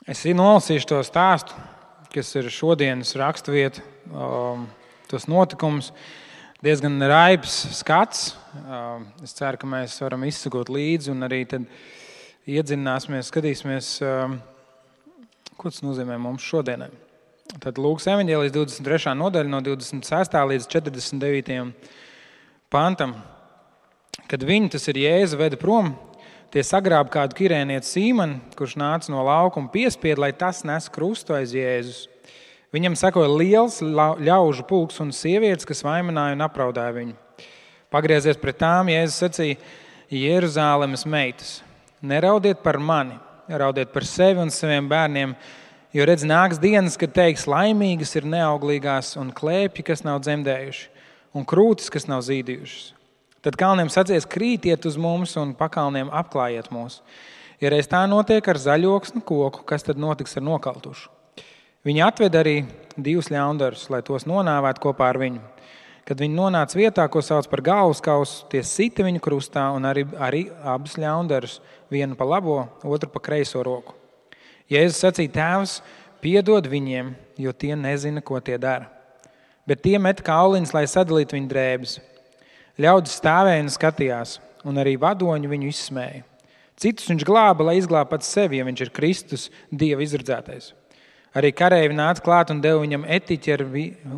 Es nolasīšu to stāstu, kas ir šodienas raksturvieta, tos notikumus. Diezgan raibs skats. Es ceru, ka mēs varam izsekot līdzi un arī tad iedzināsimies, skatīsimies, ko tas nozīmē mums šodienai. Tad Lūkas evaņģēlijas 23. nodaļa no 26. līdz 49. pantam. Kad viņi, tas ir Jēzu, veda prom, tie sagrāba kādu kirēnietu Sīmanu, kurš nāca no lauka un piespieda, lai tas nes krustu aiz Jēzus. Viņam sekoja liels ļaužu pulks un sievietes, kas vainināja un apraudāja viņu. Pagriezies pret tām, Jēzus sacīja: Jeruzālemes meitas, neraudiet par mani, raudiet par sevi un saviem bērniem, jo redz, nāks dienas, kad teiks: laimīgas ir neauglīgās un klēpji, kas nav dzemdējuši, un krūtis, kas nav zīdījušas. Tad kalniem sacīs: krītiet uz mums un pakalniem apklājiet mūs. Ja reiz tā notiek ar zaļoksnu koku, kas tad notiks ar nokaltušu? Viņi atved arī 2 ļaundarus, lai tos nonāvētu kopā ar viņu. Kad viņi nonāca vietā, ko sauc par galvaskausu, tie sita viņu krustā un arī abus ļaundarus, vienu pa labo, otru pa kreiso roku. Jēzus sacīja: Tēvs, piedod viņiem, jo tie nezina, ko tie dara. Bet tie met kauliņus, lai sadalītu viņu drēbes. Ļaudis stāvēja un skatījās, un arī vadoņi viņu izsmēja. Citus viņš glāba, lai izglābtu pats sevi, ja viņš ir Kristus, Dieva izredzētais. Arī kareivi nāca klāt un deva viņam etiķi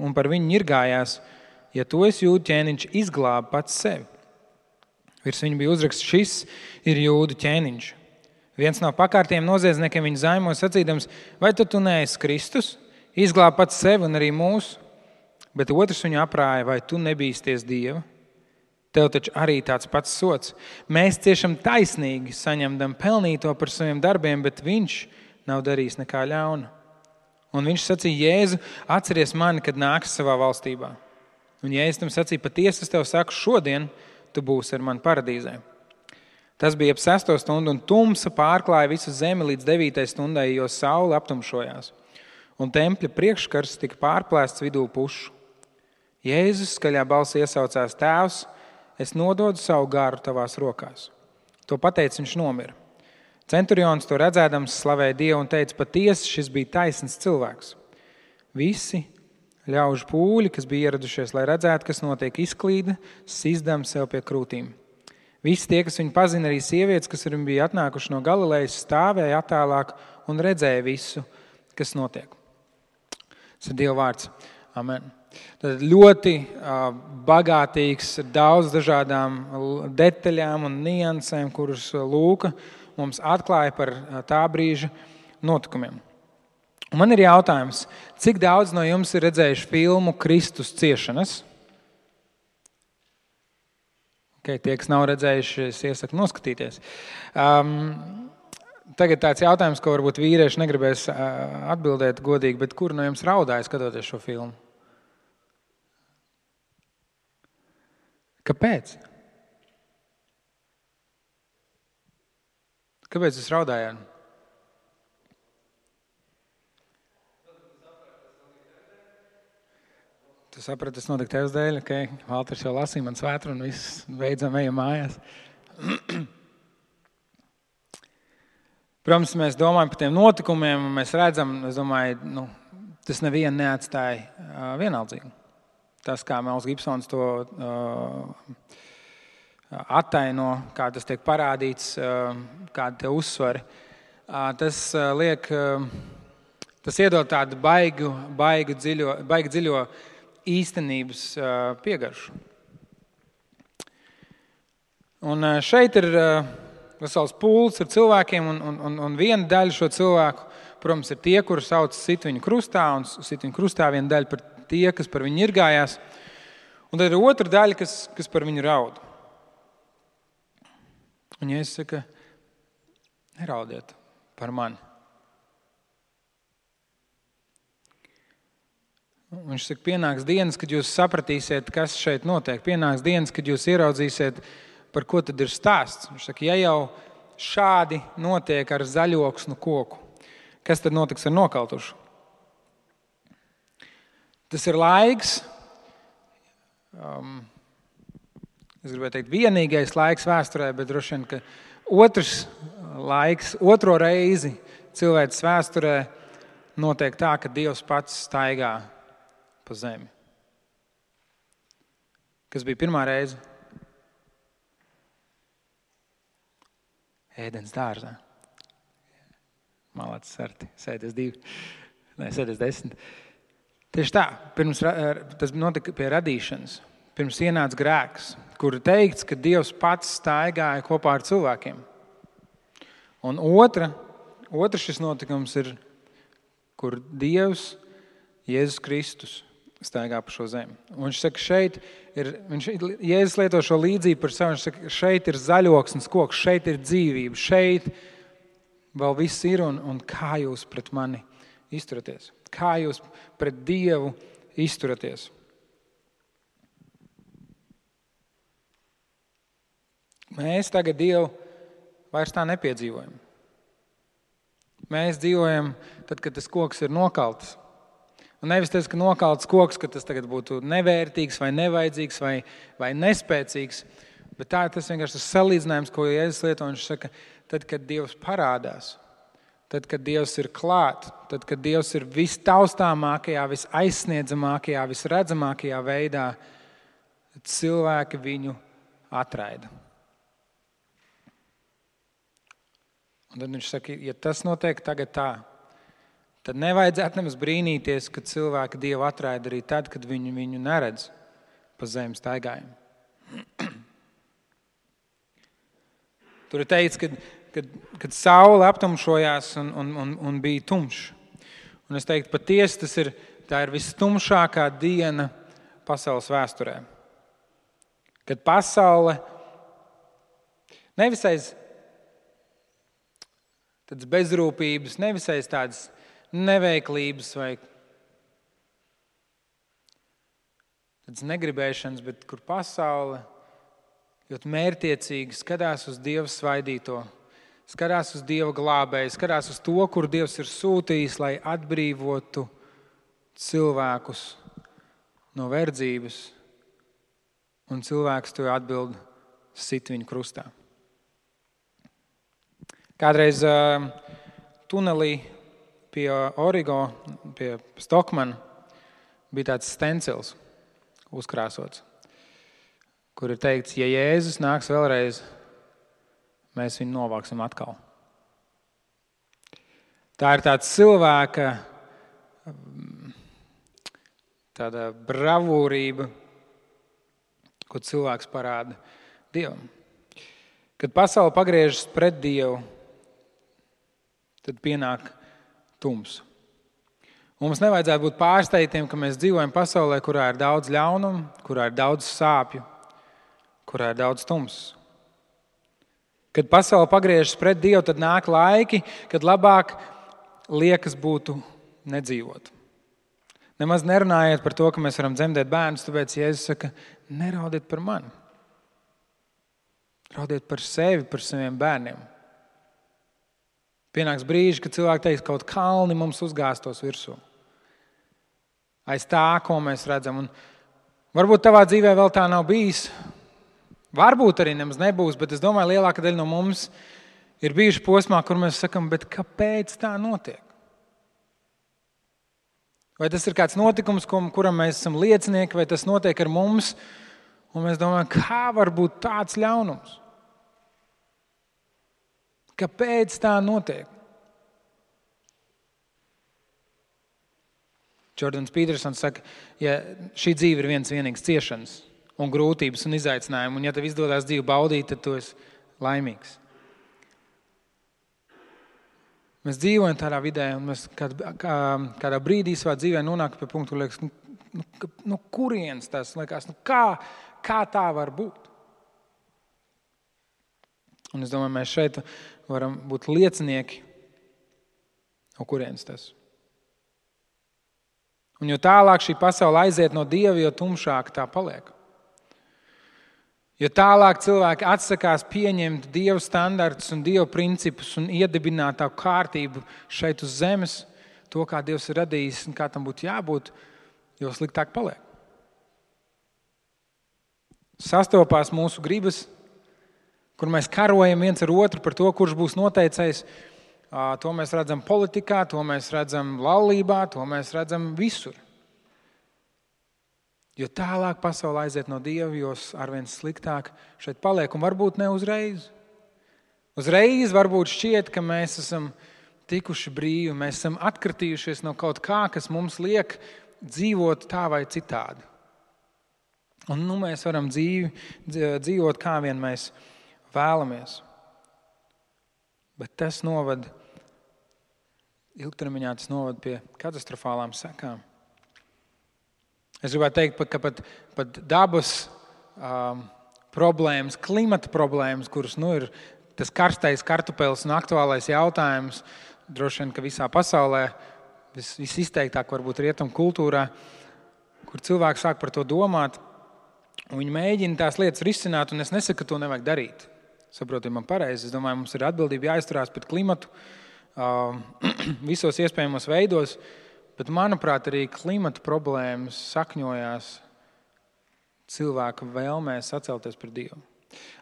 un par viņu ņirgājās: ja tu esi jūdu ķēniņš, izglābi pats sevi. Virs viņa bija uzraksts: šis ir jūdu ķēniņš. Viens no pakārtiem noziedzniekiem viņu zaimoja sacīdams: vai tu neesi Kristus? Izglābi pats sevi un arī mūsu. Bet otrs viņu aprāja: vai tu nebīsties Dieva? Tev taču arī tāds pats sots. Mēs ciešam taisnīgi, saņemdam pelnīto par saviem darbiem, bet viņš nav darījis nekā ļauna. Un viņš sacīja: Jēzu, atceries mani, kad nāksi savā valstībā. Un Jēzus tam sacīja: patiesi es tev saku, šodien tu būsi ar mani paradīzē. Tas bija ap 6. stundu, un tumsa pārklāja visu zemi līdz 9. stundai, jo saule aptumšojās. Un tempļa priekškars tika pārplēsts vidū pušu. Jēzus skaļā balsī iesaucās: Tēvs, es nododu savu garu tavās rokās. To pateicis, viņš nomira. Centurions to redzēdams slavēja Dievu un teica: patiesi šis bija taisns cilvēks. Visi ļaužu pūļi, kas bija ieradušies, lai redzētu, kas notiek, izklīda, sizdam sev pie krūtīm. Visi tie, kas viņu pazina, arī sievietes, kas viņu bija atnākuši no Galilejas, stāvēja attālāk un redzēja visu, kas notiek. Tas ir Dieva vārds. Amen. Tad ļoti bagātīgs, daudz dažādām detaļām un niansēm, kuras Lūka mums atklāja par tā brīža notikumiem. Un man ir jautājums, cik daudz no jums ir redzējuši filmu Kristus ciešanas? Tie, kas nav redzējuši, es iesaku noskatīties. Tagad tāds jautājums, ko varbūt vīrieši negribēs atbildēt godīgi, bet kur no jums raudāja skatoties šo filmu? Kāpēc? Kāpēc jūs raudājāt? Tu saprati, tas notika tevis dēļ, ok? Valters jau lasīja man svētru un viss beidzam ejam mājās. Protams, mēs domājam par tiem notikumiem un mēs redzam, es domāju, tas nevienu neatstāja vienaldzīgi. Tas, kā Mels Gibsons to attaino, kā tas tiek parādīts, kādi te uzsvari, tas iedod tādu baigi dziļo īstenības piegaršu. Un šeit ir vesels pūls ar cilvēkiem, un viena daļa šo cilvēku, protams, ir tie, kuri sauc sit viņu krustā, un sit viņu krustā viena daļa par tie, kas par viņu ņirgājās, un tad ir otra daļa, kas par viņu raud. Un Jēzus saka: neraudiet par mani. Viņš saka, pienāks dienas, kad jūs sapratīsiet, kas šeit notiek. Pienāks dienas, kad jūs ieraudzīsiet, par ko tad ir stāsts. Viņš saka, ja jau šādi notiek ar zaļoksnu koku, kas tad notiks ar nokaltušu? Tas ir laiks, es gribēju teikt, vienīgais laiks vēsturē, bet droši vien, ka otro reizi cilvēces vēsturē notiek tā, ka Dievs pats staigā pa zemi. Kas bija pirmā reize? Ēdens dārzā. Malācis Arti, sēdies 2, sēdies 10. Tieši tā, tas notika pie radīšanas. Pirms ienāca grēks, kur teikts, ka Dievs pats staigāja kopā ar cilvēkiem. Un otra šis notikums ir, kur Dievs, Jēzus Kristus, staigā pa šo zemi. Un viņš saka, Jēzus lieto šo līdzību par savu, viņš saka, šeit ir zaļoksnes koks, šeit ir dzīvība, šeit vēl viss ir, un kā jūs pret mani izturaties? Kā jūs pret Dievu izturaties? Mēs tagad Dievu vairs tā nepiedzīvojam. Mēs dzīvojam tad, kad tas koks ir nokalts. Un nevis tas, ka nokalts koks, ka tas tagad būtu nevērtīgs vai nevajadzīgs vai nespēcīgs, bet tā ir tas vienkārši tas salīdzinājums, ko Jēzus lieto. Viņš saka, tad, kad Dievs parādās, tad, kad Dievs ir klāt, tad, kad Dievs ir vistaustāmākajā, visaizsniedzamākajā, visredzamākajā veidā, tad cilvēki viņu atraida. Un tad viņš saka, ja tas notiek tagad tā, tad nevajadzētu nemaz brīnīties, ka cilvēki Dievu atraida arī tad, kad viņu neredz pa zemes staigājumu. Tur ir teikts, kad saule aptumšojās un bija tumšs. Un es teiktu, patiesi tā ir visstumšākā diena pasaules vēsturē. Kad pasaule nevis aiz tādas bezrūpības, nevis aiz tādas neveiklības vai tādas negribēšanas, bet kur pasaule ļoti mērķtiecīgi skatās uz Dieva svaidīto, skatās uz Dieva glābēju, skatās uz to, kur Dievs ir sūtījis, lai atbrīvotu cilvēkus no verdzības, un cilvēks to atbild sit viņu krustā. Kādreiz tunelī pie Origo, pie Stokmana, bija tāds stencils uzkrāsots, kur ir teikts, ja Jēzus nāks vēlreiz, mēs viņu novāksim atkal. Tā ir tāds cilvēka tāda bravūrība, ko cilvēks parāda Dievam. Kad pasaule pagriežas pret Dievu, tad pienāk tums. Mums nevajadzētu būt pārsteigtiem, ka mēs dzīvojam pasaulē, kurā ir daudz ļaunumu, kurā ir daudz sāpju, kurā ir daudz tums. Kad pasaule pagriežas pret Dievu, tad nāk laiki, kad labāk liekas būtu nedzīvot. Nemaz nerunājiet par to, ka mēs varam dzemdēt bērnus, tāpēc Jēzus saka, neraudiet par mani. Raudiet par sevi, par saviem bērniem. Pienāks brīži, kad cilvēki teiks, kaut kalni mums uzgāstos virsū. Aiz tā, ko mēs redzam. Un varbūt tavā dzīvē vēl tā nav bijis. Varbūt arī nemaz nebūs, bet es domāju, lielāka daļa no mums ir bijuši posmā, kur mēs sakam, bet kāpēc tā notiek? Vai tas ir kāds notikums, kuram mēs esam liecinieki, vai tas notiek ar mums, un mēs domājam, kā var būt tāds ļaunums? Kāpēc tā notiek? Jordans Petersons saka, ja šī dzīve ir viens vienīgs ciešanas un grūtības un izaicinājumi, un ja tev izdodas dzīvi baudīt, tad tu esi laimīgs. Mēs dzīvojam tādā vidē, un mēs kādā brīdī savā dzīvē nonāk pie punktu, kur liekas, no kurienes tas liekas, kā tā var būt? Un es domāju, mēs šeit varam būt liecinieki, no kurienes tas. Un jo tālāk šī pasaule aiziet no Dieva, jo tumšāk tā paliek. Jo tālāk cilvēki atsakās pieņemt Dieva standartus un Dieva principus un iedibināt tā kārtību šeit uz zemes, to, kā Dievs ir radījis un kā tam būtu jābūt, jo sliktāk paliek. Sastopās mūsu gribas, kur mēs karojam viens ar otru par to, kurš būs noteicējs, To mēs redzam politikā, to mēs redzam laulībā, to mēs redzam visur. Jo tālāk pasaule aiziet no Dieva, jo arvien sliktāk šeit paliek, un varbūt ne uzreiz. Uzreiz varbūt šķiet, ka mēs esam tikuši brīvi, mēs esam atkritījušies no kaut kā, kas mums liek dzīvot tā vai citādi. Un mēs varam dzīvot kā vien mēs vēlamies. Bet tas ilgtermiņā tas noved pie katastrofālām sekām. Es gribētu teikt, ka pat dabas problēmas, klimata problēmas, kuras ir tas karstais kartupelis un aktuālais jautājums, droši vien, ka visā pasaulē, visizteiktāk varbūt rietumu kultūrā, kur cilvēki sāk par to domāt, un viņi mēģina tās lietas risināt, un es nesaku, ka to nevajag darīt. Saprotiet man pareizi. Es domāju, mums ir atbildība jāizturās pret klimatu visos iespējamos veidos, bet, manuprāt, arī klimata problēmas sakņojās cilvēka vēlmē sacelties pret Dievu.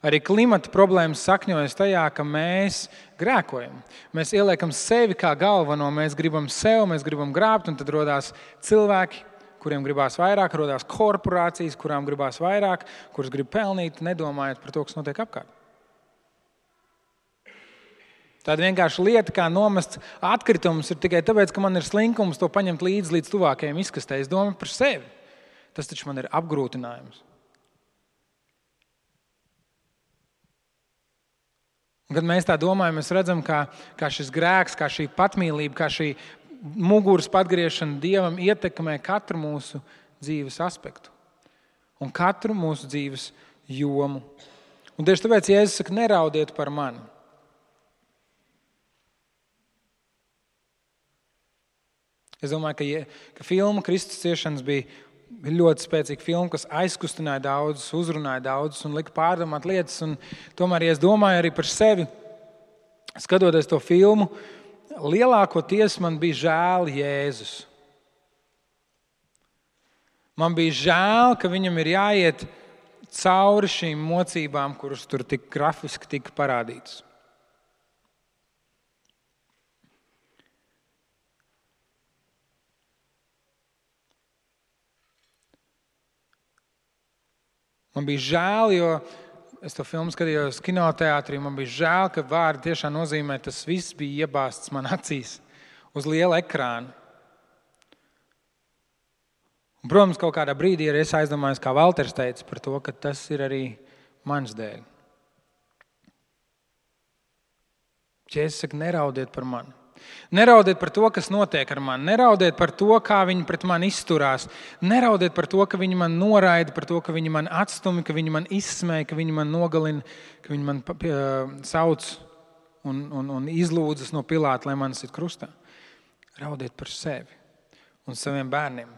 Arī klimata problēmas sakņojas tajā, ka mēs grēkojam. Mēs ieliekam sevi kā galveno, mēs gribam sev, mēs gribam grābt, un tad rodās cilvēki, kuriem gribās vairāk, rodās korporācijas, kurām gribās vairāk, kuras grib pelnīt, nedomājot par to, kas notiek apkārt. Tāda vienkārši lieta, kā nomest atkritumus, ir tikai tāpēc, ka man ir slinkums to paņemt līdz tuvākajiem izkastē. Es domāju par sevi. Tas taču man ir apgrūtinājums. Un, kad mēs tā domājam, mēs redzam, kā šis grēks, kā šī patmīlība, kā šī muguras patgriešana Dievam ietekmē katru mūsu dzīves aspektu un katru mūsu dzīves jomu. Un tieši tāpēc Jēzus saka, neraudiet par mani. Es domāju, ka filma Kristus ciešanas bija ļoti spēcīga filma, kas aizkustināja daudzus, uzrunāja daudzus un lika pārdomāt lietas. Un tomēr, ja es domāju arī par sevi, skatoties to filmu, lielākoties man bija žēl Jēzus. Man bija žēl, ka viņam ir jāiet cauri šīm mocībām, kuras tur tik grafiski tika parādītas. Man bija žēl, jo es to filmu skatījos kinoteātrī, man bija žēl, ka vārdi tiešām nozīmē, tas viss bija iebāzts man acīs uz liela ekrāna. Un, protams, kaut kādā brīdī arī es aizdomājos, kā Valters teica, par to, ka tas ir arī mans dēļ. Jēzus saka, neraudiet par mani. Neraudiet par to, kas notiek ar mani. Neraudiet par to, kā viņi pret mani izturās. Neraudiet par to, ka viņi man noraida, par to, ka viņi man atstumi, ka viņi man izsmēja, ka viņi man nogalina, ka viņi man sauc un izlūdzas no Pilāta, lai mani sit krustā. Raudiet par sevi un saviem bērniem.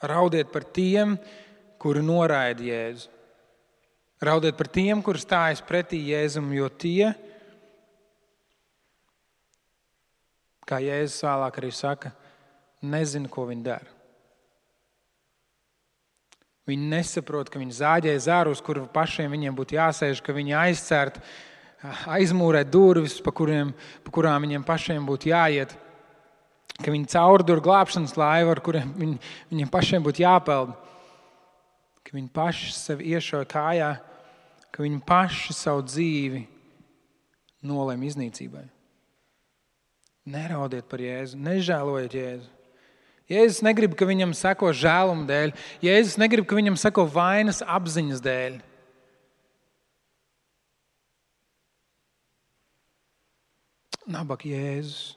Raudiet par tiem, kuri noraida Jēzu. Raudiet par tiem, kuri stājas pretī Jēzum, jo tie, kā Jēzus vēlāk arī saka, nezina, ko viņi dara. Viņi nesaprot, ka viņi zāģē zaru, uz kuru pašiem viņiem būtu jāsēž, ka viņi aizcērt, aizmūrēt durvis, pa kurām viņiem pašiem būtu jāiet, ka viņi caurdur glābšanas laivu, ar kuriem viņiem pašiem būtu jāpeld, ka viņi paši sevi iešauj kājā, ka viņi paši savu dzīvi nolēma iznīcībai. Neraudiet par Jēzu, nežēlojiet Jēzu. Jēzus negrib, ka viņam seko žēluma dēļ. Jēzus negrib, ka viņam seko vainas apziņas dēļ. Nabaga Jēzus.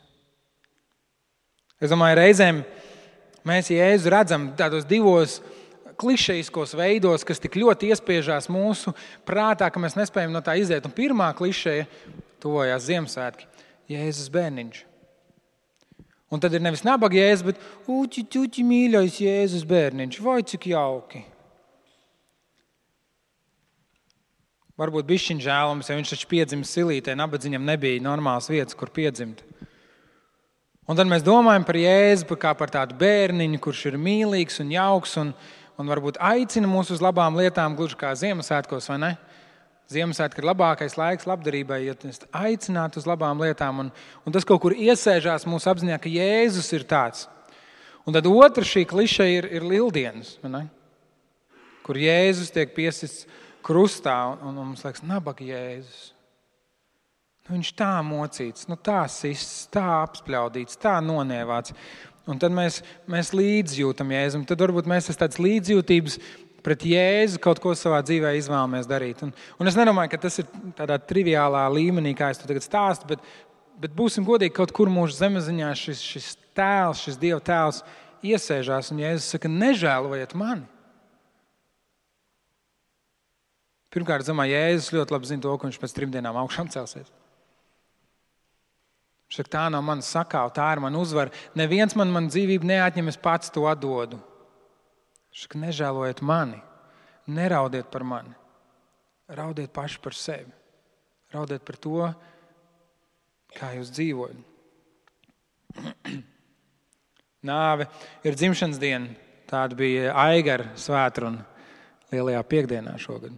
Es domāju, reizēm mēs Jēzu redzam tādos divos klišejiskos veidos, kas tik ļoti iespiežās mūsu prātā, ka mēs nespējam no tā iziet. Un pirmā klišeja tuvojās Ziemassvētki. Jēzus bērniņš. Un tad ir nevis nabaga Jēzus, bet uķi, mīļais Jēzus bērniņš. Vai cik jauki. Varbūt bišķiņ žēlums, ja viņš taču piedzimis silītē, nabadzīņam nebija normāls vietas, kur piedzimt. Un tad mēs domājam par Jēzu kā par tādu bērniņu, kurš ir mīlīgs un jauks un varbūt aicina mūs uz labām lietām, gluži kā Ziemassvētkos, vai ne? Ziemassvētki ir labākais laiks labdarībai, ja mēs aicinātu uz labām lietām. Un tas kaut kur iesēžās mūsu apziņā, ka Jēzus ir tāds. Un tad otra šī kliše ir Lieldienas, kur Jēzus tiek piesists krustā. Un mums liekas, nabaga Jēzus. Viņš tā mocīts, tā sists, tā apspļaudīts, tā nonievāts. Un tad mēs līdzjūtam Jēzum. Tad varbūt mēs tāds līdzjūtības pret Jēzu kaut ko savā dzīvē izvēlamies darīt. Un es nedomāju, ka tas ir tādā triviālā līmenī, kā es to tagad stāstu, bet būsim godīgi, kaut kur mūsu zemeziņā šis tēls, šis Dieva tēls iesēžās, un Jēzus saka, nežēlojiet mani. Pirmkārt, Jēzus ļoti labi zina to, ka viņš pēc 3 dienām augšām celsies. Viņš saka, tā nav mana sakāva, tā ir mana uzvara. Neviens man dzīvību neatņem, es pats to atdodu. Viņš saka, nežēlojiet mani, neraudiet par mani, raudiet paši par sevi. Raudiet par to, kā jūs dzīvojat. Nāve ir dzimšanas diena. Tāda bija Aigara svētruna Lielajā piekdienā šogad.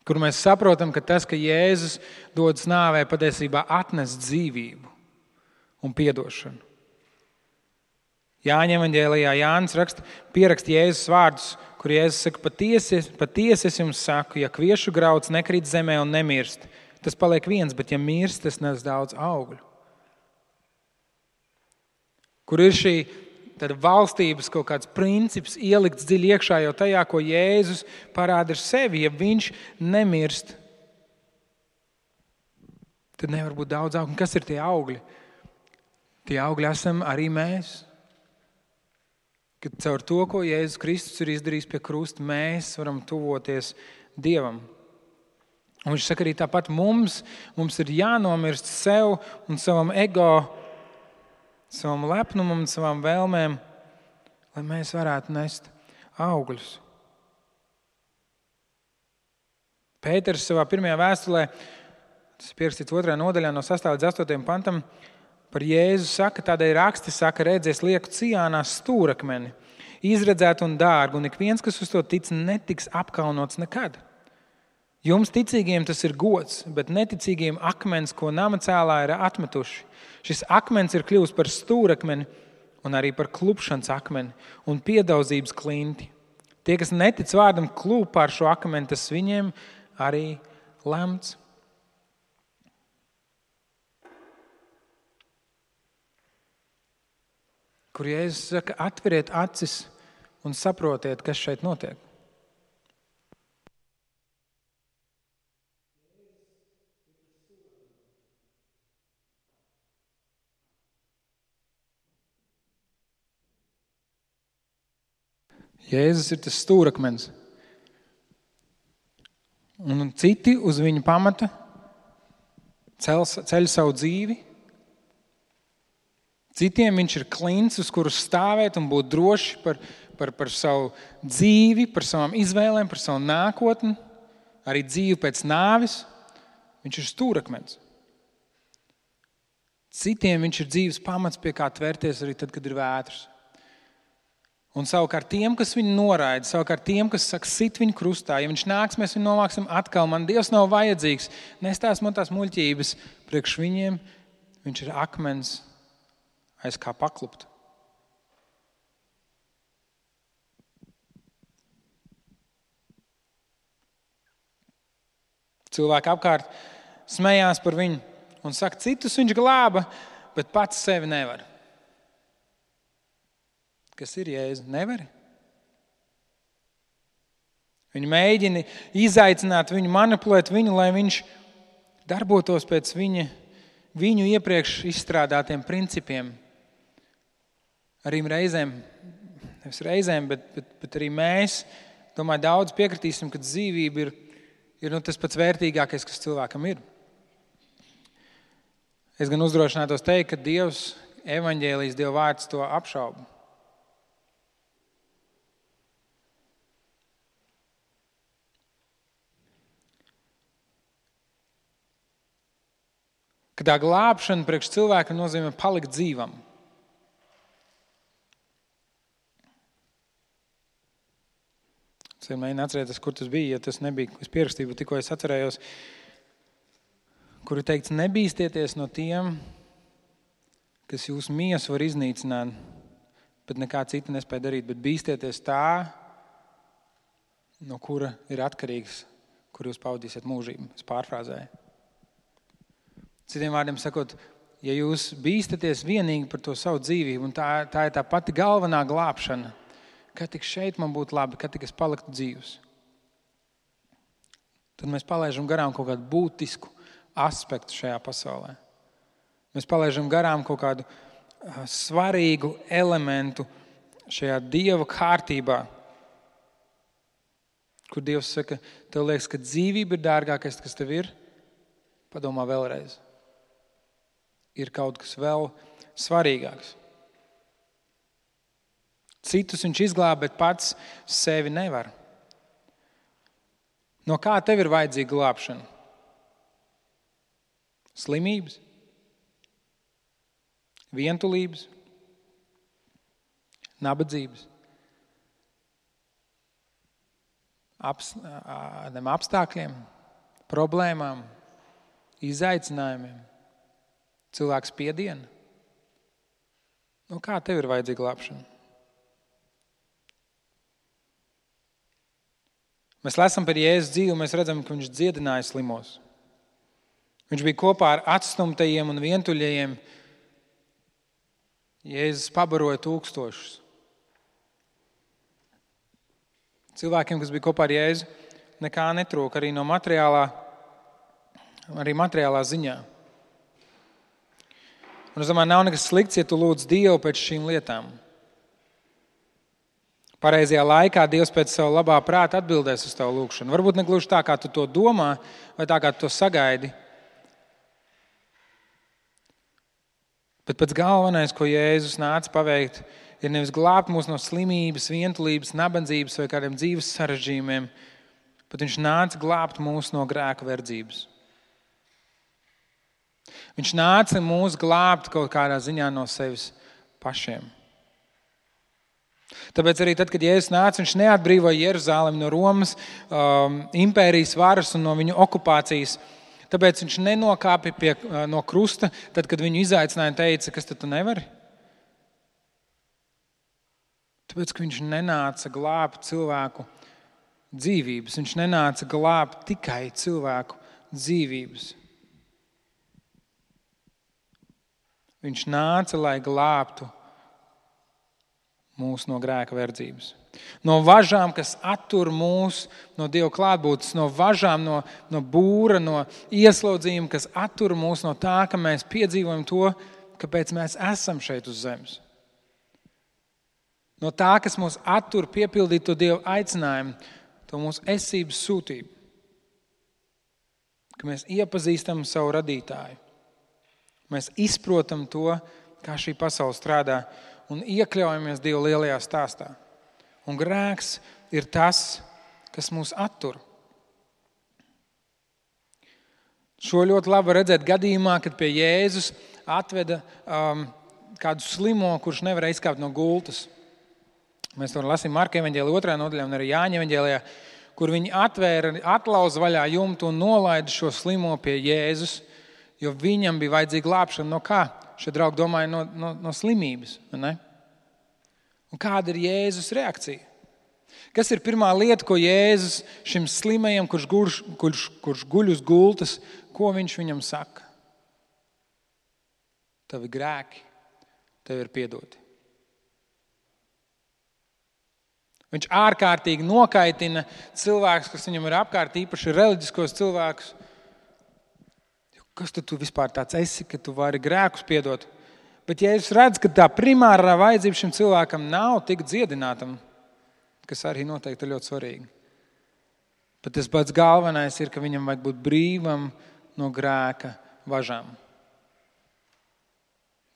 Kur mēs saprotam, ka tas, ka Jēzus dodas nāvē, patiesībā atnes dzīvību un piedošanu. Jāņa evaņģēlijā Jānis pieraksta Jēzus vārdus, kur Jēzus saka, patiesi es jums saku, ja kviešu grauds nekrīt zemē un nemirst, tas paliek viens, bet ja mirst, tas nes daudz augļu. Kur ir šī valstības kaut kāds princips ielikts dziļi iekšā jau tajā, ko Jēzus parāda ar sevi. Ja viņš nemirst, tad nevar būt daudz augļu. Kas ir tie augļi? Tie augļi esam arī mēs. Kad caur to, ko Jēzus Kristus ir izdarījis pie krusta, mēs varam tuvoties Dievam. Un viņš saka arī tāpat mums ir jānomirst sev un savam ego, savam lepnumam un savām vēlmēm, lai mēs varētu nest augļus. Pēters savā pirmajā vēstulē, tas ir pierakstīts 2. nodaļā no 6. līdz 8. pantam, par Jēzu saka, tādēļ raksti saka, redzēs lieku Cijānā stūrakmeni, izredzētu un dārgu, un ik viens, kas uz to tic, netiks apkaunots nekad. Jums ticīgiem tas ir gods, bet neticīgiem akmens, ko nama cēlāji ir atmetuši. Šis akmens ir kļuvis par stūrakmeni un arī par klupšanas akmeni un piedaudzības klinti. Tie, kas netic vārdam, klūp pār šo akmeni, tas viņiem arī lemts. Kur Jēzus saka, atveriet acis un saprotiet, kas šeit notiek. Jēzus ir tas stūrakmens. Un citi uz viņa pamata ceļ savu dzīvi. Citiem viņš ir klints, uz kuru stāvēt un būt droši par savu dzīvi, par savām izvēlēm, par savu nākotni, arī dzīvi pēc nāves. Viņš ir stūrakmens. Citiem viņš ir dzīves pamats, pie kā tvērties arī tad, kad ir vētras. Un savukārt tiem, kas viņu noraida, savukārt tiem, kas saka, sit viņu krustā, ja viņš nāks, mēs viņu novāksim atkal, man Dievs nav vajadzīgs, nestās man tās muļķības, priekš viņiem viņš ir akmens, aiz kā paklupt. Cilvēki apkārt smējās par viņu un saka, citus viņš glāba, bet pats sevi nevar. Kas ir Jēzu? Nevari? Viņi mēģina izaicināt viņu, manipulēt viņu, lai viņš darbotos pēc viņu iepriekš izstrādātiem principiem. Arī reizēm, bet arī mēs, domāju, daudz piekritīsim, ka dzīvība ir tas pats vērtīgākais, kas cilvēkam ir. Es gan uzdrošinātos teikt, ka Dievs, evaņģēlijs, Dieva vārds to apšauba. Ka tā glābšana priekš cilvēka nozīmē palikt dzīvam. Es mēģinu atcerēties, kur tas bija, ja tas nebija, es pierakstīju, bet tikko es atcerējos, kur ir teikts, nebīstieties no tiem, kas jūsu miesu var iznīcināt, bet nekā cita nespēja darīt, bet bīstieties tā, no kura ir atkarīgs, kur jūs pavadīsiet mūžību. Es pārfrāzēju. Citiem vārdiem sakot, ja jūs bīstaties vienīgi par to savu dzīvību, un tā ir tā pati galvenā glābšana, kad tik šeit man būtu labi, kad tik es paliktu dzīvs, tad mēs palaižam garām kaut kādu būtisku aspektu šajā pasaulē. Mēs palaižam garām kaut kādu svarīgu elementu šajā Dieva kārtībā, kur Dievs saka, tev liekas, ka dzīvība ir dārgākais, kas tev ir, padomā vēlreiz. Ir kaut kas vēl svarīgāks. Citus viņš izglāb, bet pats sevi nevar. No kā tev ir vajadzīga glābšana? Slimības? Vientulības? Nabadzības? Apstākļiem, problēmām, izaicinājumiem, cilvēku spiedienu. No kā tev ir vajadzīga glābšana? Mēs lasām par Jēzus dzīvi, un mēs redzam, ka viņš dziedināja slimos. Viņš bija kopā ar atstumtajiem un vientuļajiem. Jēzus pabaroja tūkstošus. Cilvēkiem, kas bija kopā ar Jēzu, nekā netrūka arī no materiālā ziņā. Un es domāju, nav nekas slikts, ja tu lūdz Dievu pēc šīm lietām. Pareizajā laikā Dievs pēc savu labā prāta atbildēs uz tavu lūgšanu. Varbūt negluži tā, kā tu to domā, vai tā, kā tu to sagaidi. Bet pats galvenais, ko Jēzus nāca paveikt, ir nevis glābt mūs no slimības, vientulības, nabadzības vai kādiem dzīves sarežģījumiem, bet viņš nāca glābt mūs no grēka verdzības. Viņš nāca mūs glābt kaut kādā ziņā no sevis pašiem. Tāpēc arī tad, kad Jēzus nāca, viņš neatbrīvoja Jeruzalemi no Romas impērijas varas un no viņu okupācijas. Tāpēc viņš nenokāpa no krusta, tad, kad viņu izaicināja un teica, kas tad tu nevari? Tāpēc, ka viņš nenāca glābt cilvēku dzīvības. Viņš nenāca glābt tikai cilvēku dzīvības. Viņš nāca, lai glābtu mūs no grēka verdzības. No važām, kas attur mūs no Dieva klātbūtnes, no važām, no būra, no ieslodzījuma, kas attur mūs no tā, ka mēs piedzīvojam to, kāpēc mēs esam šeit uz zemes. No tā, kas mūs attur piepildīt to Dieva aicinājumu, to mūsu esības sūtību. Ka mēs iepazīstam savu radītāju. Mēs izprotam to, kā šī pasaule strādā un iekļaujamies Dieva lielajā stāstā. Un grēks ir tas, kas mūs attur. Šo ļoti labi redzēt gadījumā, kad pie Jēzus atveda kādu slimo, kurš nevarēja izkāpt no gultas. Mēs to lasām Marka evaņģēlijā 2. nodaļā un arī Jāņa evaņģēlijā, kur viņi atlauza vaļā jumtu un nolaida šo slimo pie Jēzus, jo viņam bija vajadzīga glābšana no kā? Šie draugi domāja no slimības. Ne? Un kāda ir Jēzus reakcija? Kas ir pirmā lieta, ko Jēzus šim slimajam, kurš guļ uz gultas, ko viņš viņam saka? Tavi grēki tev ir piedoti. Viņš ārkārtīgi nokaitina cilvēkus, kas viņam ir apkārt, īpaši reliģiskos cilvēkus. Kas tu vispār tāds esi, ka tu vari grēkus piedot? Bet ja es redzu, ka tā primārā vajadzība šim cilvēkam nav tik dziedinātam, kas arī noteikti ir ļoti svarīgi. Bet tas pats galvenais ir, ka viņam vajag būt brīvam no grēka važām.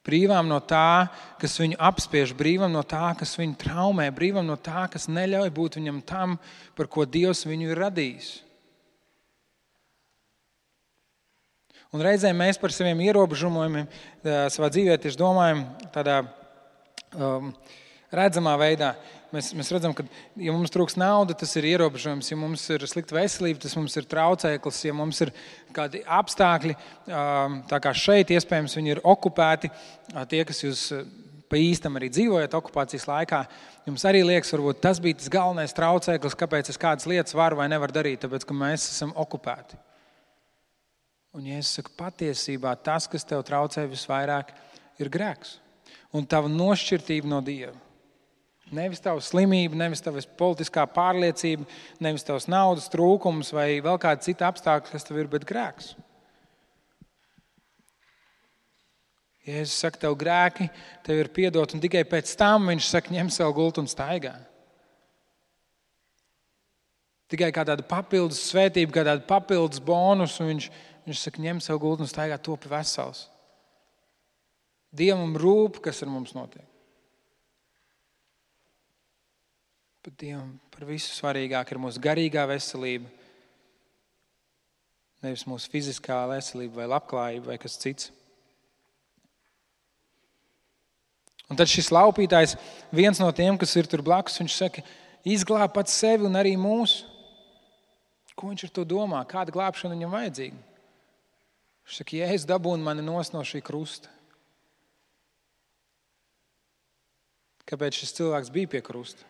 Brīvam no tā, kas viņu apspiež, brīvam no tā, kas viņu traumē, brīvam no tā, kas neļauj būt viņam tam, par ko Dievs viņu ir radījis. Un reizēm mēs par saviem ierobežojumiem savā dzīvē tieši domājam tādā redzamā veidā. mēs redzam, ka, ja mums trūks nauda, tas ir ierobežojums. Ja mums ir slikta veselība, tas mums ir traucēklis. Ja mums ir kādi apstākļi, tā kā šeit, iespējams, viņi ir okupēti, tie, kas jūs pa īstam arī dzīvojat okupācijas laikā, jums arī liekas, varbūt tas bija tas galvenais traucēklis, kāpēc es kādas lietas varu vai nevaru darīt, tāpēc, ka mēs esam okupēti. Un, ja es saku, patiesībā tas, kas tev traucē visvairāk, ir grēks. Un tava nošķirtība no Dieva. Nevis tava slimība, nevis tava politiskā pārliecība, nevis tavs naudas trūkums vai vēl kāda cita apstākļa, kas tev ir, bet grēks. Jēzus saka, tev grēki, tev ir piedot, un tikai pēc tam viņš saka, ņem savu gultu un staigā. Tikai kā tāda papildus svētība, kā tāda papildus bonus, un viņš saka, ņem savu gultu un staigā, topi vesels. Dievam rūp, kas ar mums notiek. Bet Dievam par visu svarīgāk ir mūsu garīgā veselība, nevis mūsu fiziskā veselība vai labklājība vai kas cits. Un tad šis laupītājs, viens no tiem, kas ir tur blakus, viņš saka, izglāb pats sevi un arī mūsu. Ko viņš ar to domā? Kāda glābšana viņam vajadzīga? Viņš saka, Jēzus dabūna mani nost no šī krusta. Kāpēc šis cilvēks bija pie krusta?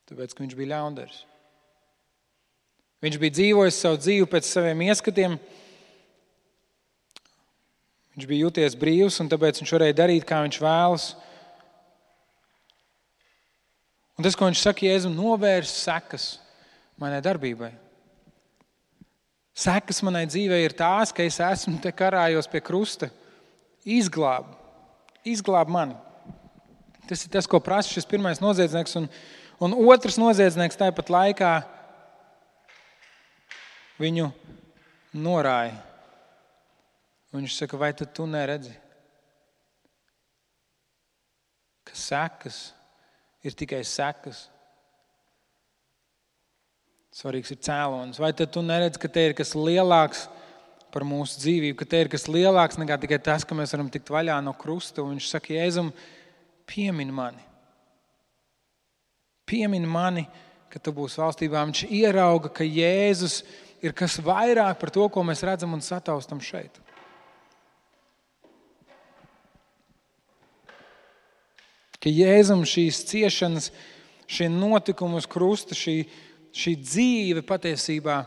Tāpēc, ka viņš bija ļaundaris. Viņš bija dzīvojis savu dzīvi pēc saviem ieskatiem. Viņš bija jūties brīvs, un tāpēc viņš varēja darīt, kā viņš vēlas. Un tas, ko viņš saka, Jēzum, novērs sekas manai darbībai. Sekas manai dzīvei ir tās, ka es esmu te karājos pie krusta. Izglāb mani. Tas ir tas, ko prasa šis pirmais noziedznieks. Un otrs noziedznieks tāpat laikā viņu norāja. Viņš saka, vai tad tu neredzi, ka sekas ir tikai sekas? Svarīgs ir cēlonis. Vai tad tu neredzi, ka te ir kas lielāks par mūsu dzīvību, ka te ir kas lielāks nekā tikai tas, ka mēs varam tikt vaļā no krusta? Un viņš saka, Jēzum, piemini mani. Piemini mani, ka tu būsi valstībā. Viņš ierauga, ka Jēzus ir kas vairāk par to, ko mēs redzam un sataustam šeit. Ka Jēzum šīs ciešanas, šie notikumi uz krusta, šī dzīve patiesībā,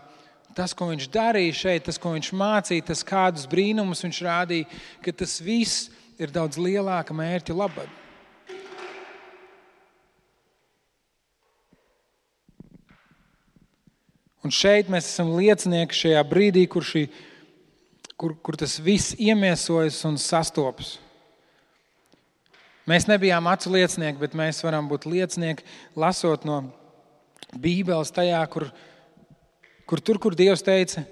tas, ko viņš darīja šeit, tas, ko viņš mācīja, tas, kādus brīnumus viņš rādīja, ka tas viss ir daudz lielāka mērķa labad. Un šeit mēs esam liecinieki šajā brīdī, kur tas viss iemiesojas un sastopas. Mēs nebijām acu liecinieki, bet mēs varam būt liecinieki, lasot no Bībeles tajā, kur Dievs teica,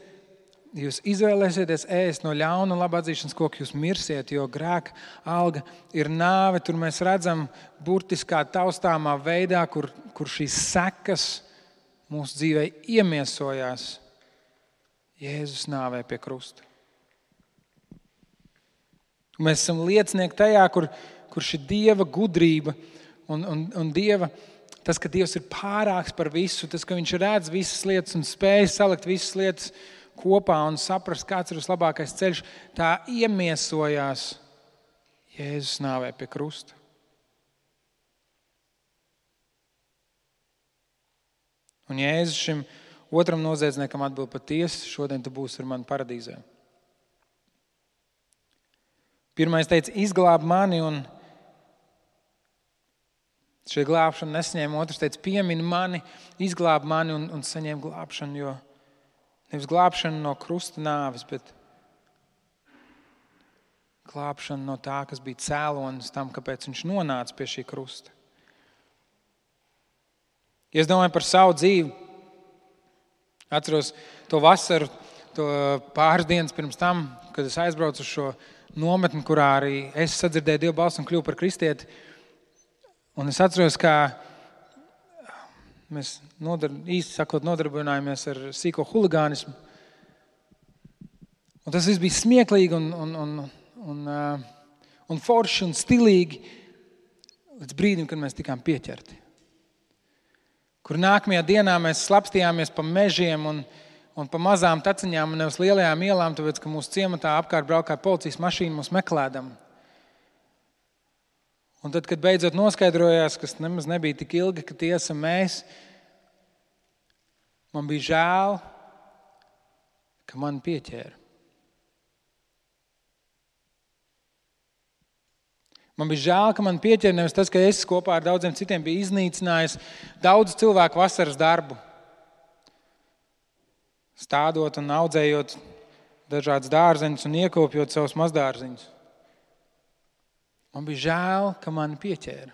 jūs izvēlēsieties ēst no ļauna un laba atzīšanas koka, jūs mirsiet, jo grēka alga ir nāve. Tur mēs redzam burtiskā taustāmā veidā, kur šīs sekas mūsu dzīvē iemiesojās Jēzus nāvē pie krusta. Mēs esam liecinieki tajā, kur šī Dieva gudrība un Dieva, tas, ka Dievs ir pārāks par visu, tas, ka viņš redz visas lietas un spēj salikt visas lietas kopā un saprast, kāds ir vislabākais ceļš, tā iemiesojās Jēzus nāvē pie krusta. Un Jēzus šim otram noziedzniekam atbild, patiesi, šodien tu būsi ar mani paradīzē. Pirmais teica, izglāb mani, un šī glābšana nesaņēma. Otrs teica, piemini mani, izglāb mani un saņēma glābšanu, jo nevis glābšanu no krusta nāves, bet glābšanu no tā, kas bija cēlonis tam, kāpēc viņš nonāca pie šī krusta. Ja es domāju par savu dzīvi, atceros to vasaru, to pāris dienas pirms tam, kad es aizbraucu uz šo nometni, kurā arī es sadzirdēju Dievu balsi un kļuvu par kristieti. Un es atceros, kā mēs īsti sakot nodarbinājāmies ar sīko huligānismu. Un tas viss bija smieklīgi un forši un stilīgi. līdz brīdim, kad mēs tikām pieķerti. Kur nākamajā dienā mēs slapstījāmies pa mežiem un pa mazām taciņām un nevis lielajām ielām, tāpēc, ka mūsu ciematā apkārt braukāja policijas mašīna mūs meklēdam. Un tad, kad beidzot noskaidrojās, kas nemaz nebija tik ilgi, ka tie esam mēs, man bija žēl, ka man pieķēra. Man bija žēl, ka man pieķēra nevis tas, ka es kopā ar daudziem citiem biju iznīcinājis daudz cilvēku vasaras darbu. Stādot un audzējot dažādas dārzeņus un iekopjot savus mazdārziņus. Man bija žēl, ka mani pieķēra.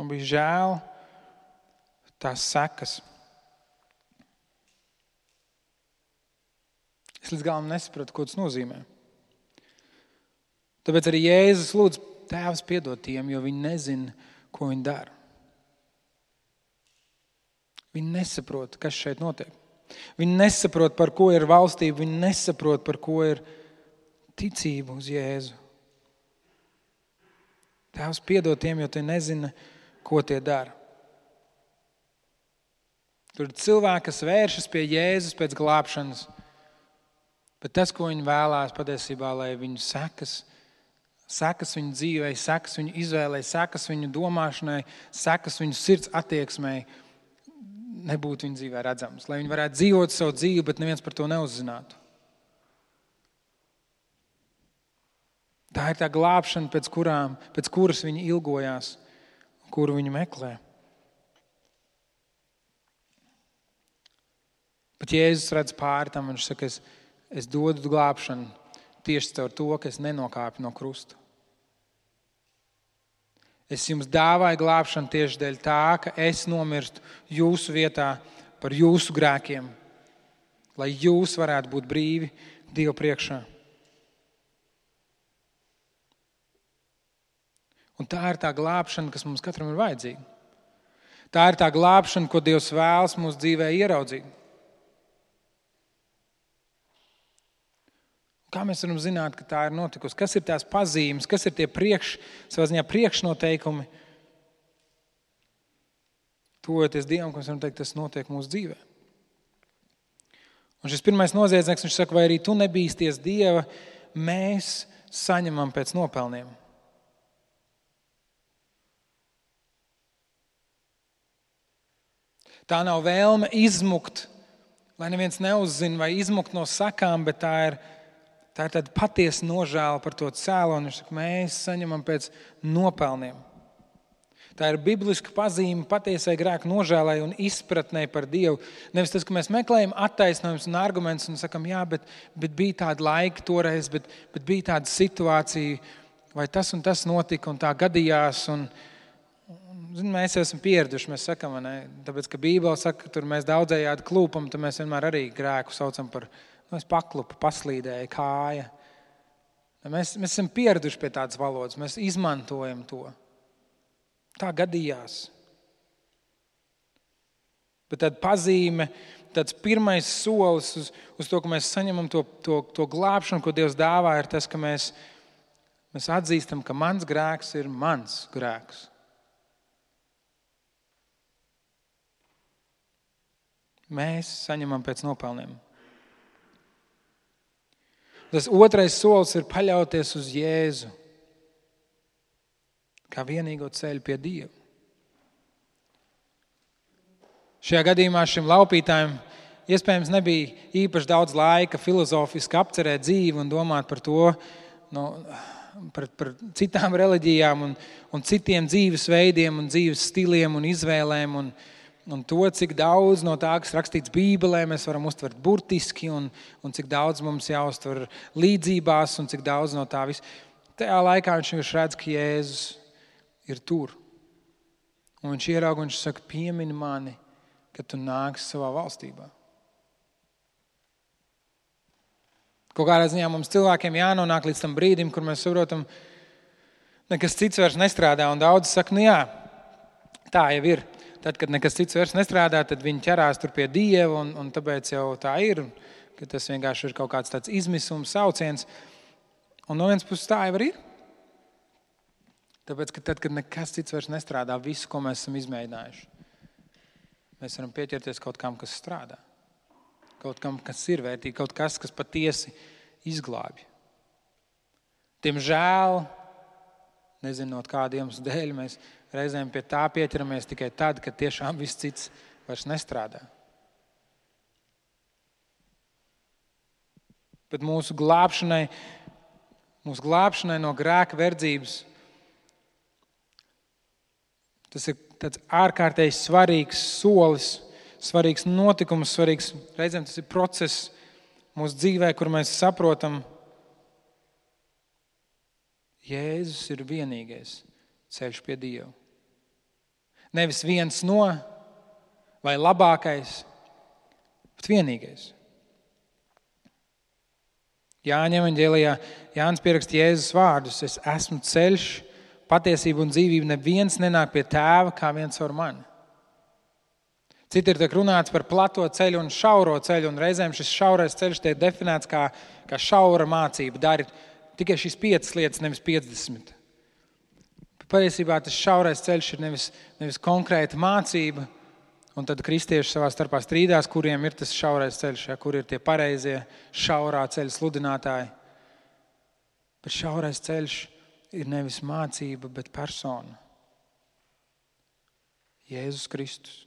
Man bija žēl tās sekas. Es līdz galam nesapratu, ko tas nozīmē. Tāpēc arī Jēzus lūdz, Tēvs, piedod tiem, jo viņi nezina, ko viņi dara. Viņi nesaprot, kas šeit notiek. Viņi nesaprot, par ko ir valstība, viņi nesaprot, par ko ir ticība uz Jēzu. Tēvs, piedod tiem, jo tie nezina, ko tie dara. Tur ir cilvēki, kas vēršas pie Jēzus pēc glābšanas, bet tas, ko viņi vēlās patiesībā, lai viņu sekas viņu dzīvei, sekas viņu izvēlei, sekas viņu domāšanai, sekas viņu sirds attieksmei, nebūtu viņa dzīvē redzams. Lai viņi varētu dzīvot savu dzīvi, bet neviens par to neuzzinātu. Tā ir tā glābšana, pēc kuras viņi ilgojās, kuru viņi meklē. Bet Jēzus redz pāri tam, viņš saka, es dodu glābšanu tieši caur to, ka es nenokāpu no krusta. Es jums dāvāju glābšanu tieši dēļ tā, ka es nomirstu jūsu vietā par jūsu grēkiem, lai jūs varētu būt brīvi Dieva priekšā. Un tā ir tā glābšana, kas mums katram ir vajadzīga. Tā ir tā glābšana, ko Dievs vēlas mūsu dzīvē ieraudzīt. Kā mēs varam zināt, ka tā ir notikusi? Kas ir tās pazīmes, kas ir tie savā ziņā priekšnoteikumi? Tuvojoties Dievam, ka mēs varam teikt, tas notiek mūsu dzīvē. Un šis pirmais noziedznieks, viņš saka, vai arī tu nebīsties Dieva, mēs saņemam pēc nopelniem. Tā nav vēlme izmukt, lai neviens neuzzina vai izmukt no sakām, bet tā ir tāda patiesa nožēla par to cēloni. Viņš saka, mēs saņemam pēc nopelniem. Tā ir bibliska pazīme patiesai grēka nožēlai un izpratnei par Dievu. Nevis tas, ka mēs meklējam attaisnojumus un argumentus un sakam, jā, bet bija tāda laika toreiz, bet bija tāda situācija, vai tas un tas notika un tā gadījās. Mēs esam pieraduši, mēs sakam, ne? Tāpēc, ka Bībele saka, ka tur mēs daudzējādi klūpam, tad mēs vienmēr arī grēku saucam par es paklupu, paslīdēju kāja. Mēs esam pieraduši pie tādas valodas, mēs izmantojam to. Tā gadījās. Bet tāda pazīme, tāds pirmais solis uz to, ka mēs saņemam to glābšanu, ko Dievs dāvā, ir tas, ka mēs atzīstam, ka mans grēks ir mans grēks. Mēs saņemam pēc nopelniem. Tas otrais solis ir paļauties uz Jēzu kā vienīgo ceļu pie Dieva. Šajā gadījumā šim laupītājam iespējams nebija īpaši daudz laika filozofiski apcerēt dzīvi un domāt par to, par citām reliģijām un citiem dzīves veidiem un dzīves stiliem un izvēlēm un to, cik daudz no tā, kas rakstīts Bībelē, mēs varam uztvert burtiski un cik daudz mums jāuztver līdzībās un cik daudz no tā viss. Tajā laikā viņš redz, ka Jēzus ir tur. Un viņš ieraug un viņš saka, piemini mani, kad tu nāksi savā valstībā. Kaut kādā ziņā mums cilvēkiem jānonāk līdz tam brīdim, kur mēs saprotam, nekas cits vairs nestrādā un daudz saka, jā, tā jau ir. Tad, kad nekas cits vairs nestrādā, tad viņi ķerās tur pie Dieva un tāpēc jau tā ir, ka tas vienkārši ir kaut kāds tāds izmisums, sauciens. Un no vienas puses tā jau ir. Tāpēc, ka tad, kad nekas cits vairs nestrādā, visu, ko mēs esam izmēģinājuši, mēs varam pieķerties kaut kam, kas strādā. Kaut kam, kas ir vērtīgi, kaut kas patiesi izglābj. Diemžēl, nezinot kādiem dēļ, mēs reizēm pie tā pieķeramies tikai tad, kad tiešām viss cits vairs nestrādā. Bet mūsu glābšanai no grēka verdzības, tas ir tāds ārkārtēji svarīgs solis, svarīgs notikums, reizēm tas ir process mūsu dzīvē, kur mēs saprotam, Jēzus ir vienīgais ceļš pie Dieva. Nevis viens no vai labākais, bet vienīgais. Jāņa evaņģēlijā Jānis pieraksta Jēzus vārdus: es esmu ceļš, patiesība un dzīvība, neviens nenāk pie tēva kā viens ar mani. Citur tiek runāts par plato ceļu un šauro ceļu, un reizēm šis šaurais ceļš tiek definēts kā šaura mācība. Dari tikai šīs 5 lietas, nevis 50. Patiesībā tas šaurais ceļš ir nevis konkrēta mācība, un tad kristieši savā starpā strīdās, kuriem ir tas šaurais ceļš, kur ir tie pareizie šaurā ceļa sludinātāji. Bet šaurais ceļš ir nevis mācība, bet persona. Jēzus Kristus.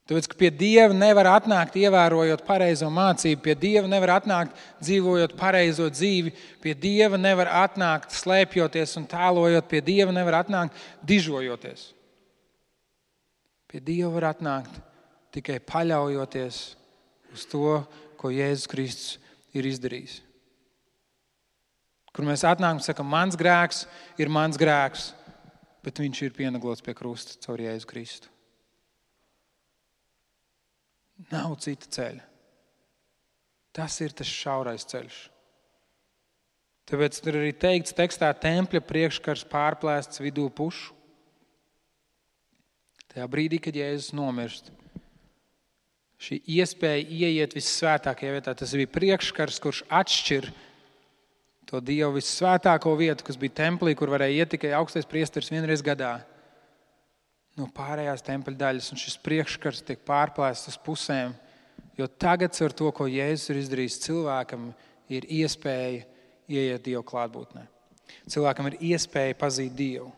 Tāpēc, ka pie Dieva nevar atnākt ievērojot pareizo mācību, pie Dieva nevar atnākt dzīvojot pareizo dzīvi, pie Dieva nevar atnākt slēpjoties un tēlojot, pie Dieva nevar atnākt dižojoties. Pie Dieva var atnākt tikai paļaujoties uz to, ko Jēzus Kristus ir izdarījis. Kur mēs atnākam un sakam, mans grēks ir mans grēks, bet viņš ir pienaglots pie krusta caur Jēzu Kristu. Nav cita ceļa. Tas ir tas šaurais ceļš. Tāpēc tur arī teikts tekstā, tempļa priekškars pārplēsts vidū pušu. Tajā brīdī, kad Jēzus nomirst, šī iespēja ieiet vissvētākajā vietā, tas bija priekškars, kurš atšķir to Dievu vissvētāko vietu, kas bija templī, kur varēja iet tikai augstais priesteris vienreiz gadā, no pārējās tempļa daļas, un šis priekškars tiek pārplēsts uz pusēm, jo tagad ar to, ko Jēzus ir izdarījis, cilvēkam ir iespēja ieiet Dievu klātbūtnē. Cilvēkam ir iespēja pazīt Dievu.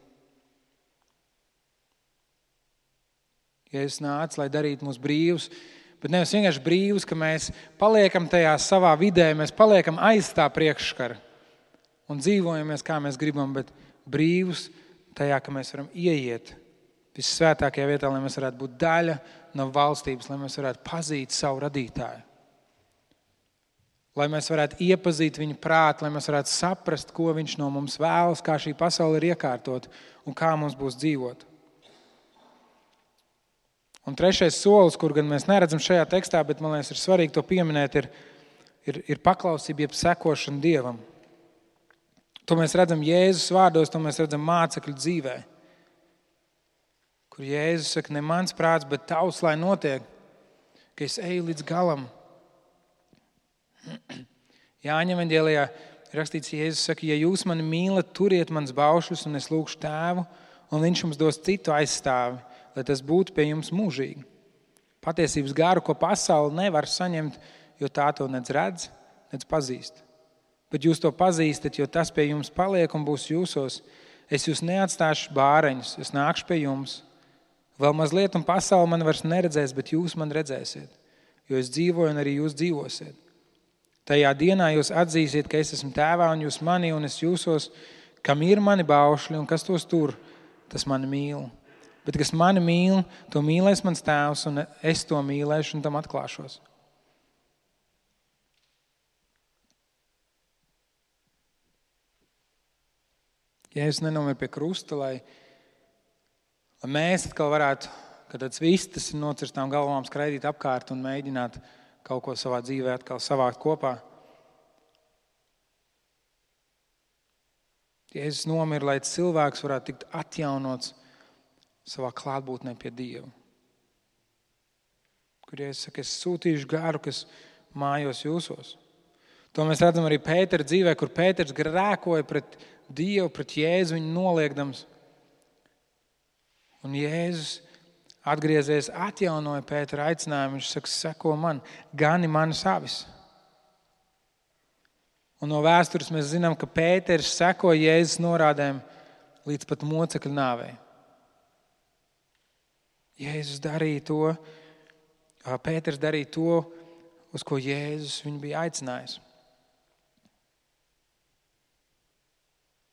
Jēzus nāca, lai darītu mūs brīvus, bet nevis vienkārši brīvus, ka mēs paliekam tajā savā vidē, mēs paliekam aiz tā priekškara un dzīvojamies, kā mēs gribam, bet brīvus tajā, ka mēs varam ieiet vissvētākajā vietā, lai mēs varētu būt daļa no valstības, lai mēs varētu pazīt savu radītāju. Lai mēs varētu iepazīt viņu prātu, lai mēs varētu saprast, ko viņš no mums vēlas, kā šī pasaule ir iekārtot un kā mums būs dzīvot. Un trešais solis, kur gan mēs neredzam šajā tekstā, bet man liekas ir svarīgi to pieminēt, ir paklausība, jeb sekošana Dievam. To mēs redzam Jēzus vārdos, to mēs redzam mācekļu dzīvē. Kur Jēzus saka, ne mans prāts, bet tavs, lai notiek, ka es eju līdz galam. Jāņa evaņģēlijā rakstīts, Jēzus saka, ja jūs mani mīlat, turiet mans baušļus, un es lūgšu tēvu, un viņš jums dos citu aizstāvi, lai tas būtu pie jums mūžīgi. Patiesības garu, ko pasaule nevar saņemt, jo tā to nedz redz, nedz pazīst. Bet jūs to pazīstat, jo tas pie jums paliek un būs jūsos. Es jūs neatstāšu bāreņus, es nākšu pie jums. Vēl mazliet un pasaule man vairs neredzēs, bet jūs man redzēsiet, jo es dzīvoju un arī jūs dzīvosiet. Tajā dienā jūs atzīsiet, ka es esmu tēvā un jūs mani un es jūsos, kam ir mani baušļi un kas tos tur, tas mani mīl. Bet kas mani mīl, to mīlēs mans tēvs un es to mīlēšu un tam atklāšos. Jēzus nenomir pie krusta, lai mēs atkal varētu, kad tāds vistas ir nocirstām galvām, skraidīt apkārt un mēģināt kaut ko savā dzīvē atkal savākt kopā. Jēzus nomira, lai cilvēks varētu tikt atjaunots savā klātbūtnē pie Dieva. Kur Jēzus saka, es sūtīšu garu, kas mājos jūsos. To mēs redzam arī Pētera dzīvē, kur Pēters grēkoja pret Dievu, pret Jēzu viņu noliekdams. Un Jēzus atgriezies, atjaunoja Pētera aicinājumu. Viņš saka, seko man, gani manas avis. Un no vēstures mēs zinām, ka Pēters seko Jēzus norādēm līdz pat mocekļa nāvei. Jēzus darīja to, Pēters darīja to, uz ko Jēzus viņu bija aicinājis.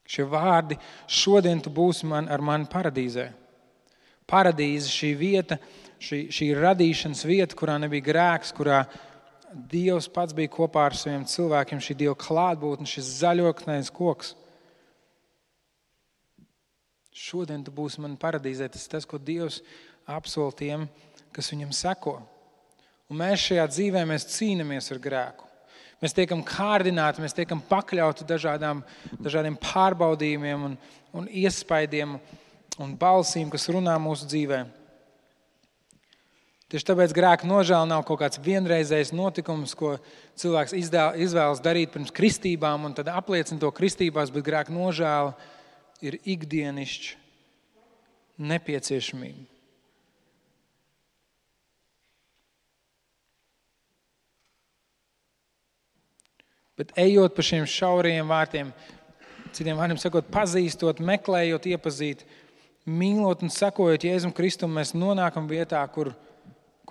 Šie vārdi, šodien tu būsi ar mani paradīzē. Paradīze, šī vieta, šī radīšanas vieta, kurā nebija grēks, kurā Dievs pats bija kopā ar saviem cilvēkiem, šī Dieva klātbūtne, šis zaļoknais koks. Šodien tu būsi man paradīzē. Tas ir tas, ko Dievs apsola tiem, kas viņam seko. Un mēs šajā dzīvē mēs cīnāmies ar grēku. Mēs tiekam kārdināti, mēs tiekam pakļauti dažādiem pārbaudījumiem un iespaidiem un balsīm, kas runā mūsu dzīvē. Tieši tāpēc grēka nožēla nav kaut kāds vienreizējs notikums, ko cilvēks izvēlas darīt pirms kristībām un tad apliecina to kristībās, bet grēka nožēla ir ikdienišķa nepieciešamība. Bet ejot pa šiem šaurajiem vārtiem, citiem vārdiem sakot, pazīstot, meklējot, iepazīt, mīlot un sekojot Jēzum Kristum, mēs nonākam vietā, kur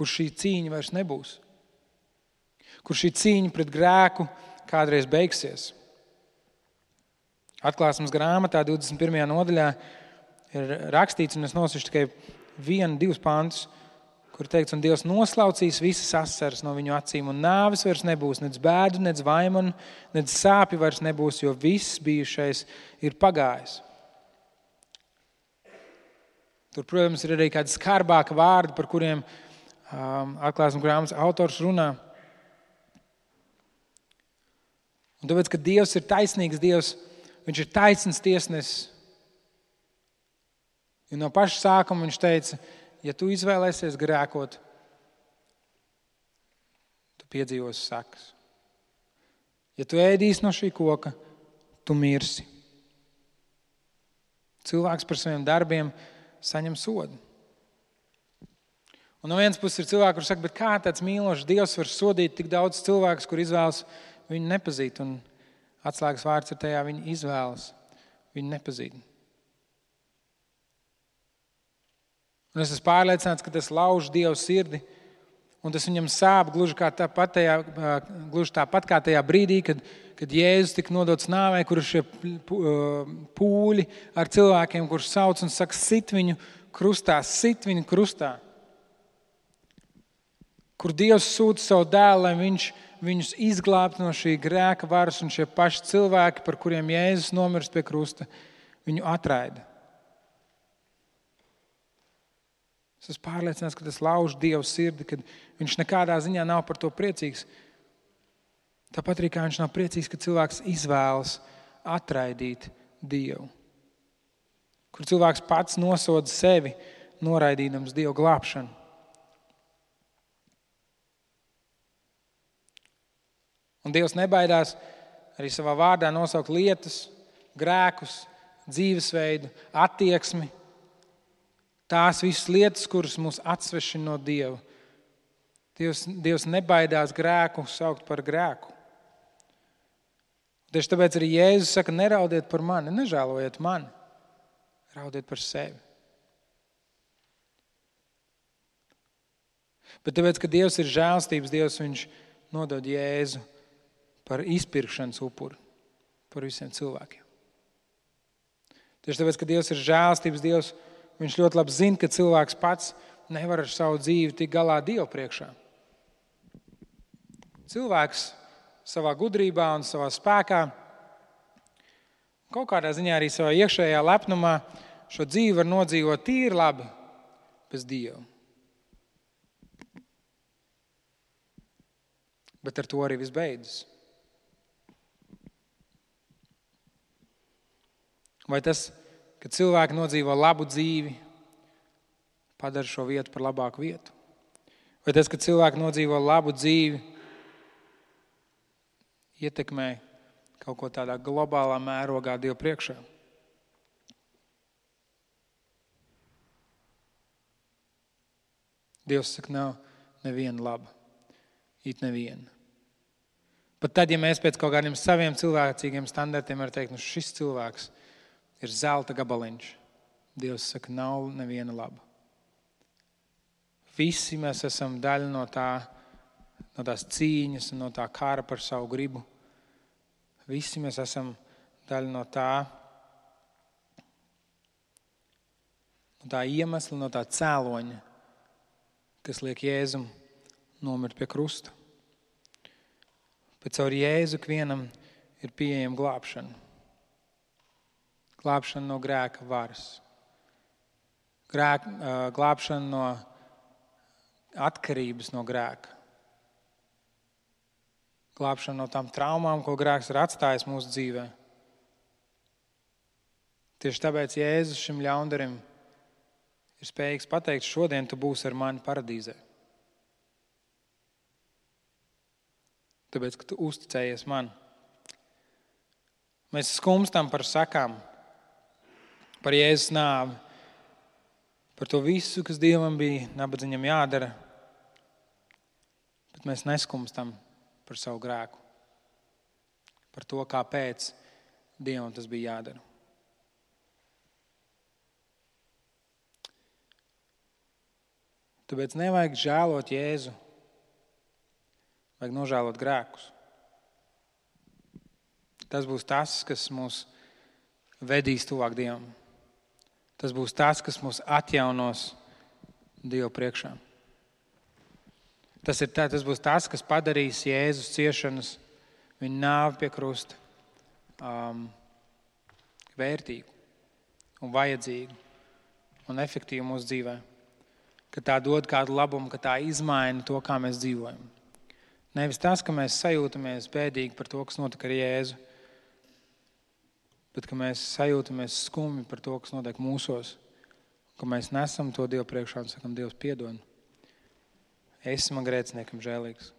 šī cīņa vairs nebūs. Kur šī cīņa pret grēku kādreiz beigsies. Atklāsmes grāmatā 21. nodaļā ir rakstīts, un es nosaukšu tikai 1-2 pantus, kur teikts, un Dievs noslaucīs visas asaras no viņu acīm, un nāves vairs nebūs, nec bēdu, nec vaimanu, nec sāpju vairs nebūs, jo viss bijušais ir pagājis. Tur, protams, ir arī kādi skarbāki vārdi, par kuriem Atklāsmes grāmatas autors runā. Un tāpēc, ka Dievs ir taisnīgs Dievs, viņš ir taisns tiesnesis. Jo no paša sākuma viņš teica, ja tu izvēlēsies grēkot, tu piedzīvosi sekas. Ja tu ēdīsi no šī koka, tu mirsi. Cilvēks par saviem darbiem saņem sodu. Un no vienas puses ir cilvēki, kur saka, bet kā tāds mīlošs Dievs var sodīt tik daudz cilvēkus, kur izvēlas viņu nepazīt? Un atslēgas vārds ir tajā, viņi izvēlas viņu nepazīt. Un es esmu pārliecināts, ka tas lauž Dievu sirdi, un tas viņam sāp gluži tāpat kā tajā brīdī, kad Jēzus tika nodots nāvei, kur ir šie pūļi ar cilvēkiem, kurus sauc un saka, sit viņu krustā. Kur Dievs sūta savu dēlu, lai viņš viņus izglābtu no šī grēka varas, un šie paši cilvēki, par kuriem Jēzus nomirst pie krusta, viņu atraida. Es esmu pārliecināts, ka tas lauž Dievu sirdi, kad viņš nekādā ziņā nav par to priecīgs. Tāpat arī kā viņš nav priecīgs, ka cilvēks izvēlas atraidīt Dievu. Kur cilvēks pats nosoda sevi, noraidīdams Dievu glābšanu. Un Dievs nebaidās arī savā vārdā nosaukt lietas, grēkus, dzīvesveidu, attieksmi. Tās visas lietas, kuras mūs atsvešina no Dieva. Dievs nebaidās grēku saukt par grēku. Tieši tāpēc arī Jēzus saka, neraudiet par mani, nežēlojiet mani, raudiet par sevi. Bet tāpēc, ka Dievs ir žēlstības Dievs, viņš nodod Jēzu par izpirkšanas upuri par visiem cilvēkiem. Tieši tāpēc, ka Dievs ir žēlstības Dievs, viņš ļoti labi zina, ka cilvēks pats nevar ar savu dzīvi tikt galā Dievu priekšā. Cilvēks savā gudrībā un savā spēkā, kaut kādā ziņā arī savā iekšējā lepnumā šo dzīvi var nodzīvot tīri labi bez Dieva. Bet ar to arī viss beidzas. Vai tas, ka cilvēki nodzīvo labu dzīvi, padara šo vietu par labāku vietu? Vai tas, ka cilvēki nodzīvo labu dzīvi, ietekmē kaut ko tādā globālā mērogā Dievu priekšā. Dievs saka, nav neviena laba. It neviena. Pat tad, ja mēs pēc kaut kādiem saviem cilvēcīgiem standartiem varam teikt, šis cilvēks ir zelta gabaliņš. Dievs saka, nav neviena laba. Visi mēs esam daļa no tās cīņas un no tā kara par savu gribu. Visi mēs esam daļa no tā iemesla, no tā cēloņa, kas liek Jēzum nomirt pie krusta. Bet caur Jēzu ikvienam ir pieejama glābšana. Glābšana no grēka varas. Glābšana no atkarības no grēka. Glābšana no tām traumām, ko grēks ir atstājis mūsu dzīvē. Tieši tāpēc Jēzus šim ļaundarim ir spējīgs pateikt, šodien tu būsi ar mani paradīzē. Tāpēc, ka tu uzticējies man. Mēs skumstam par sakām, par Jēzus nāvi, par to visu, kas Dievam bija nabadzīgam jādara, bet mēs neskumstam par savu grēku, par to, kāpēc Dievam tas bija jādara. Tāpēc nevajag žēlot Jēzu, vajag nožēlot grēkus. Tas būs tas, kas mūs vedīs tuvāk Dievam. Tas būs tas, kas mūs atjaunos Dievu priekšā. Tas būs tas, kas padarīs Jēzus ciešanas, viņa nāvi pie krusta, vērtīgu un vajadzīgu un efektīvu mūsu dzīvē. Ka tā dod kādu labumu, ka tā izmaina to, kā mēs dzīvojam. Nevis tas, ka mēs sajūtamies bēdīgi par to, kas notika ar Jēzu, bet ka mēs sajūtamies skumji par to, kas notiek mūsos, ka mēs nesam to Dievu priekšā un sakam, Dievs piedod. Esi man grēciniekam žēlīgs.